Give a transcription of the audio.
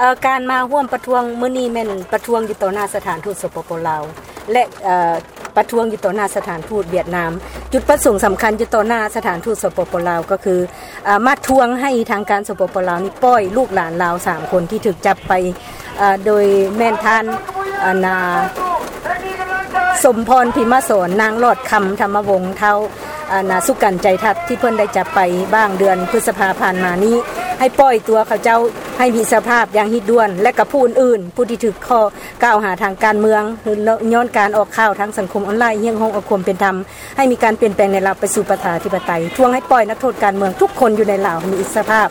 ເອີ ການມາຮ່ວມປະທ້ວງມື້ນີ້ແມ່ນປະທ້ວງຢູ່ຕໍ່ໜ້າສະຖານທູດ ສປປ ລາວ ແລະ ເອີ ປະທ້ວງຢູ່ຕໍ່ໜ້າສະຖານທູດຫວຽດນາມ. ຈຸດປະສົງສຳຄັນຢູ່ຕໍ່ໜ້າສະຖານທູດ ສປປ ລາວ ກໍຄື ເອີ ມາທວງໃຫ້ທາງການ ສປປ ລາວ ນີ້ປ່ອຍລູກຫຼານລາວສາມຄົນທີ່ຖືກຈັບໄປ ເອີ ໂດຍແມ່ນທ່ານ ອັນນາ ສົມພອນ ພິມມະສອນ, ນາງຫຼອດຄຳ ທຳມະວົງ, ທ້າວ ອັນນາ ສຸກັນ ໃຈທັດ ທີ່ເພິ່ນໄດ້ຈັບໄປຫວ່າງເດືອນພຶດສະພາຜ່ານມານີ້ ໃຫ້ປ່ອຍຕົວເຂົາເຈົ້າໃຫ້ມີສະພາບຢ່າງຮີບດ່ວນ ແລະ ກັບຜູ້ອື່ນໆ ຜູ້ທີ່ຖືກຂໍ້ກ່າວຫາທາງການເມືອງ ຍ້ອນການອອກຂ່າວທາງສັງຄົມອອນລາຍ ຮຽກຮ້ອງເອົາຄວາມເປັນທຳ ໃຫ້ມີການປ່ຽນແປງໃນລາວໄປສູ່ປະຊາທິປະໄຕ, ທວງໃຫ້ປ່ອຍນັກໂທດການເມືອງທຸກຄົນຢູ່ໃນລາວໃຫ້ມີອິດສະພາບ.